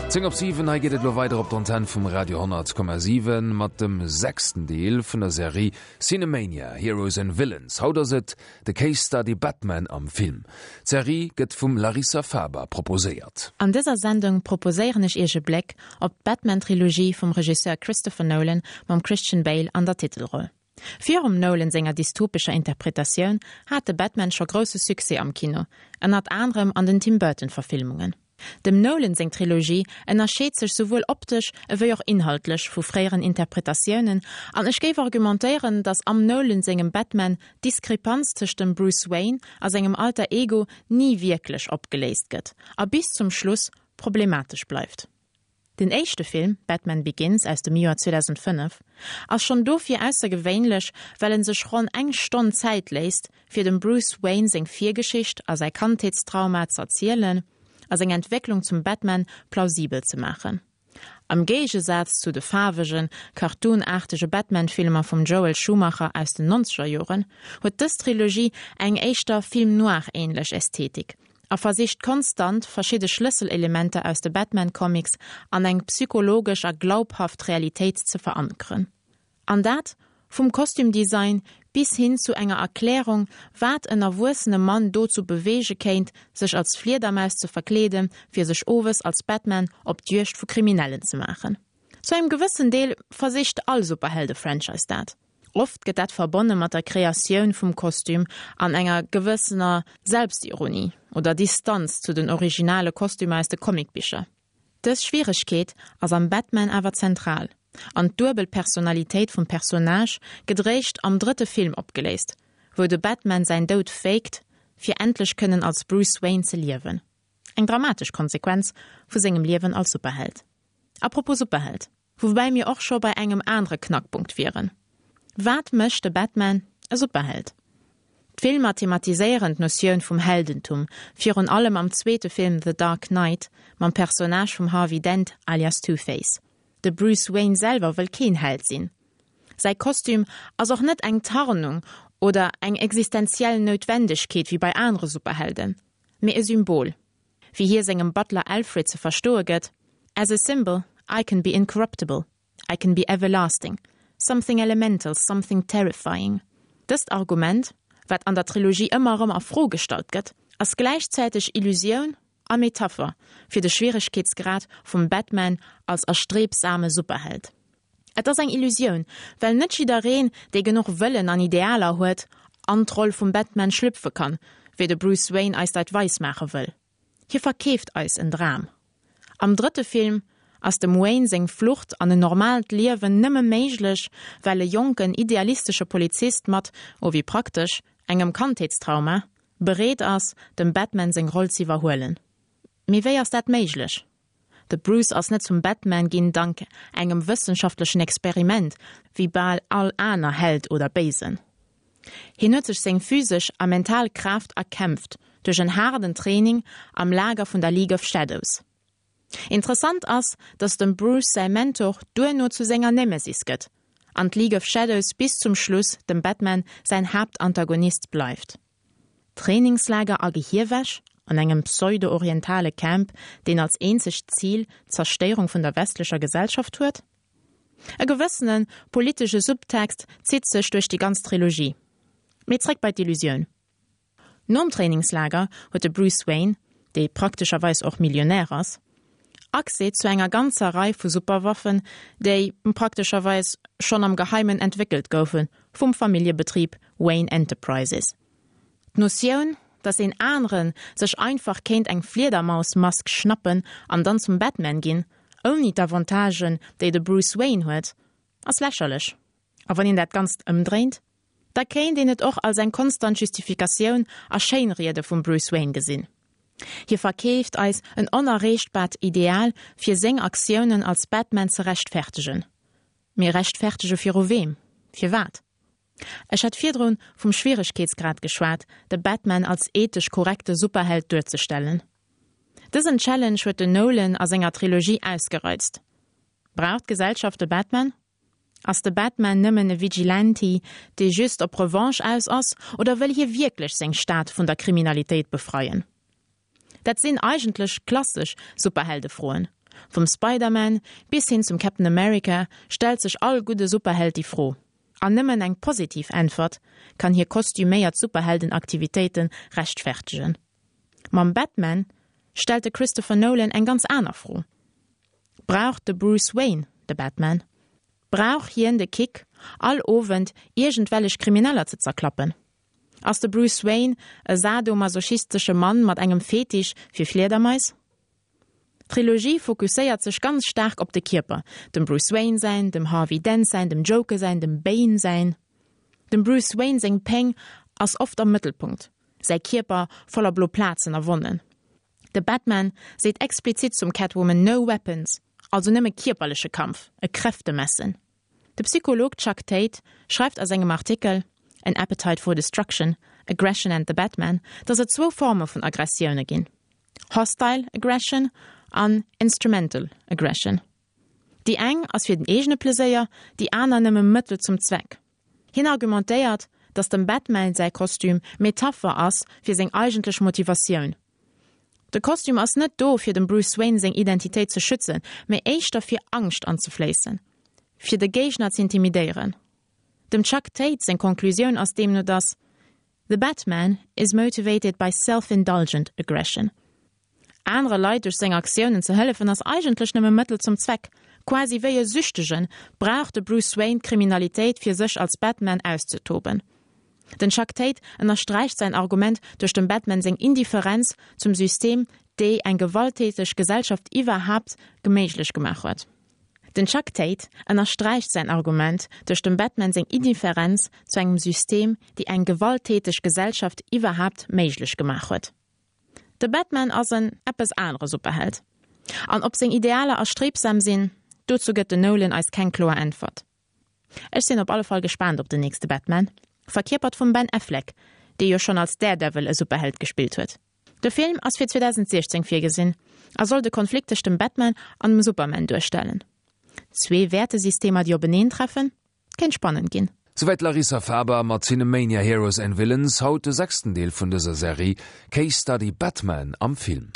10 op 7, hei geet et elo weider op d'Antenn vum Radio 10,7 mat dem sechsten Deel vun der Serie Cinemania, Heroes and Villains. Haut ass et de Case Study Batman am Film. D'Serie gëtt vum Larissa Faber proposéiert. An dëser Sendung proposéieren ech iech e Bléck op d'Batman-Trilogie vum Regisseur Christopher Nolan mam Christian Bale an der Titelroll. Virum Nolan senger dystopescher Interpretatioun hat de Batman scho grousse Succès am Kino, ënnert anerem an den Tim Burton-Verfilmungen. Dem Nolan seng Trilogie ënnerscheet sech souwuel optesch ewéi och inhaltlech vu fréieren Interpretatiounen an ech géif argumentéieren, datt am Nolan sengem Batman d'Diskrepanz tëscht dem Bruce Wayne a sengem Alter Ego ni wierklech opgeléist gëtt a bis zum Schluss problematesch bleift. Den éischte Film, Batman Begins aus dem Joer 2005, ass schonn dofir aussergewéinlech, well en sech ronn eng Stonn Zäit léisst, fir dem Bruce Wayne seng Virgeschicht a säi Kandheetstrauma z'erzielen a seng Entwécklung zum Batman plausibel ze maachen. Am Géigesaz zu de faarwegen, cartoonaartege Batman-Filmer vum Joel Schumacher aus den Nonzegerjoren, huet dës Trilogie eng éischter Film-noir-änlech Ästhetik a versicht konstant, verschidde Schlësselelementer aus de Batman-Comics an eng psychologesch a glaubhaft Realitéit ze verankeren. An dat vum Kostümdesign bis hin zu enger Erklärung, wat en erwuessene Mann dozou beweege kéint, sech als Fliedermaus ze verkleeden, fir sech owes als Batman op d'Juegd vu Kriminellen ze maachen. Zu engem gewëssen Deel versicht all Superhelde-Franchise dat. Oft gëtt dat verbonne mat der Kreatioun vum Kostüm an enger gewëssener Selbstironie oder Distanz zu den originale Kostümer aus de Comicbicher. Dës Schwieregkeet ass am Batman awer zentral, an d'duebel Personalitéit vum Personnage gëtt réischt am drëtte Film opgeléist, wou de Batman säin Doud faked, fir endlech kënnen als Bruce Wayne ze liewen. Eng dramatesch Konsequenz vu sengem Liewen als Superheld. Apropos Superheld. Woubäi mir och scho bei engem anere Knackpunkt wieren, Wat mécht de Batman e Superheld? D'Filmer thematiséieren d'Notioun vum Heldentum, virun allem am zweete Film The Dark Knight mam Personnage vum Harvey Dent alias Two-Face. De Bruce Wayne selwer wëll keen Held sinn. Säi Kostüm ass och net eng Tarnung oder eng existenziell Noutwendegkeet wéi bei anere Superhelden, mee e Symbol. Wéi hie sengem Butler Alfred ze verstoe gëtt, As a symbol, I can be incorruptible, I can be everlasting, something elemental, something terrifying. Dëst Argument, wat an der Trilogie ëmmer erëm a Fro gestallt gëtt, ass gläichzäiteg Illusioun a Metapher fir de Schwieregkeetsgrad vum Batman als erstrebsame Superheld. Et ass eng Illusioun, well net jiddereen, dee genuch Wëllen an Idealer huet, an d'Roll vum Batman schlüpfe kann, wéi de Bruce Wayne eis dat weis maache wëll. Hie verkeeft eis en Dram. Am drëtte Film ass dem Wayne seng Flucht an en normaalt Liewen nëmme méiglech, well e jonken, idealistesche Polizist mat, oh wéi praktesch, engem Kandheetstrauma, bereet ass, dem Batman seng Roll z'iwwerhuelen. Mee wéi ass dat méiglech? De Bruce ass net zum Batman ginn dank engem wëssenschaftlechen Experiment, wéi bal all aner Held oder Béisen. Hien huet sech seng physesch a mental Kraaft erkämpft duerch en haarden Training am Lager vun der League of Shadows. Interessant ass, datt dem Bruce säi Mentor duerno zu senger Nemesis gëtt an d'League of Shadows bis zum Schluss dem Batman säin Haaptantagonist bleift. Trainingslager a Gehierwäsch an engem pseudo-orientale Camp, deen als eenzegt Zil d'Zerstéierung vun der westlecher Gesellschaft huet? E gewëssene politesche Subtext zitt sech duerch déi ganz Trilogie. Mee zréck bei d'Illusioun. Nom Trainingslager huet de Bruce Wayne, dee praktescherweis och Millionär ass, Accès zu enger ganzer Rei vu Superwaffen, déi praktescherweis schonn am Geheimen entwéckelt goufe vum Familljebetrib Wayne Enterprises. D'Notioun, datt een anere sech einfach kéint eng Fliedermausmask schnappen an dann zum Batman ginn, ouni d'Avantagen, déi de Bruce Wayne huet, ass lächerlech. A wann een dat Ganzt ëmdréint, da kéint een et och als eng konstant Justifikatioun a Schéinriede vum Bruce Wayne gesinn. Hie verkeeft eis en onerreechtbart Ideal fir seng Aktiounen als Batman ze rechtfertegen. Mee rechtfertege viru weem? Firwat? Ech hat virdrun vum Schwieregkeetsgrad geschwat, de Batman als ethesch korrekte Superheld duerzestellen. Dësen Challenge huet den Nolan a senger Trilogie ausgereizt. Brauch d'Gesellschaft de Batman? Ass de Batman nëmmen e Vigilante, dee just op Revanche aus ass, oder wëll hie wierklech seng Stad vun der Kriminalitéit befreien? Dat sinn eigentlech klassesch Superheldefroen. Vum Spider-Man bis hin zum Captain America stellt sech all gudde Superheld déi Fro. An nëmmen eng positiv Äntwert kann hir kostüméiert Superheldenaktivitéite rechtfertegen. Mam Batman stellt de Christopher Nolan eng ganz aner Fro, Brauch de Bruce Wayne de Batman? Brauch hien de Kick, all Owend iergendwellech Krimineller ze zerklappen? Ass de Bruce Wayne e sadomasochistesche Mann mat engem Fetisch fir Fliedermais? D'Trilogie fokusséiert sech ganz staark op de Kierper, dem Bruce Wayne säin, dem Harvey Dent säin, dem Joker säin, dem Bane säin. Dem Bruce Wayne seng Péng ass oft am Mëttelpunkt, säi Kierper voller blo Plazen a Wonnen. De Batman seet explizit zum Catwoman no weapons, also nëmme kierperleche Kampf, e Kräftemessen. De Psycholog Chuck Tate schreift a sengem Artikel An Appetite for Destruction, Aggression and the Batman, datt et zwou Forme vun Aggressioune ginn, Hostile Aggression an Instrumental Aggression. Déi eng ass fir den eegene Pleséier, déi aner nëmme Mëttel zum Zweck. Hien argumentéiert, datt dem Batman säi Kostüm Metapher ass fir seng eigentlech Motivatioun. De Kostüm ass net do fir dem Bruce Wayne seng Identitéit ze schützen, mee éischter fir Angscht anzefléissen, fir de Géigner z'intimidéieren. Dem Chuck Tate seng Konklusioun ass deemno datt The Batman is motivated by self-indulgent aggression. Anere Leit duerch seng Aktiounen ze hëllefen ass eigentlech nëmme Mëttel zum Zweck. Quasi wéi e Süchtegen brauch de Bruce Wayne d'Kriminalitéit fir sech als Batman auszetoben. Den Chuck Tate ënnersträicht säin Argument duerch dem Batman seng Indifferenz zum System déi eng gewalttäteg Gesellschaft iwwerhaapt geméiglech gemaach huet. Den Chuck Tate ënnersträicht säin Argument duerch dem Batman seng Indifferenz zu engem System déi eng gewalttäteg Gesellschaft iwwerhaapt méiglech gemaach huet. De Batman ass en eppes anere Superheld. An ob seng Idealer erstrebsam sinn, dozou gëtt den Nolan eis keng kloer Äntwert. Ech sinn op alle Fall gespaant op den nächste Batman, verkierpert vum Ben Affleck, dee jo schonn als Daredevil e Superheld gespillt huet. De Film ass fir 2016 virgesinn a soll de Konflikt tëscht dem Batman an dem Superman duerstellen. Zwee Wäertesystemer, déi openeentreffen? Kéint spannend ginn. Souwäit d'Larissa Faber mat Cinemania Heroes and Villains, haut de sechsten Deel vun dëser Serie Case Study Batman am Film.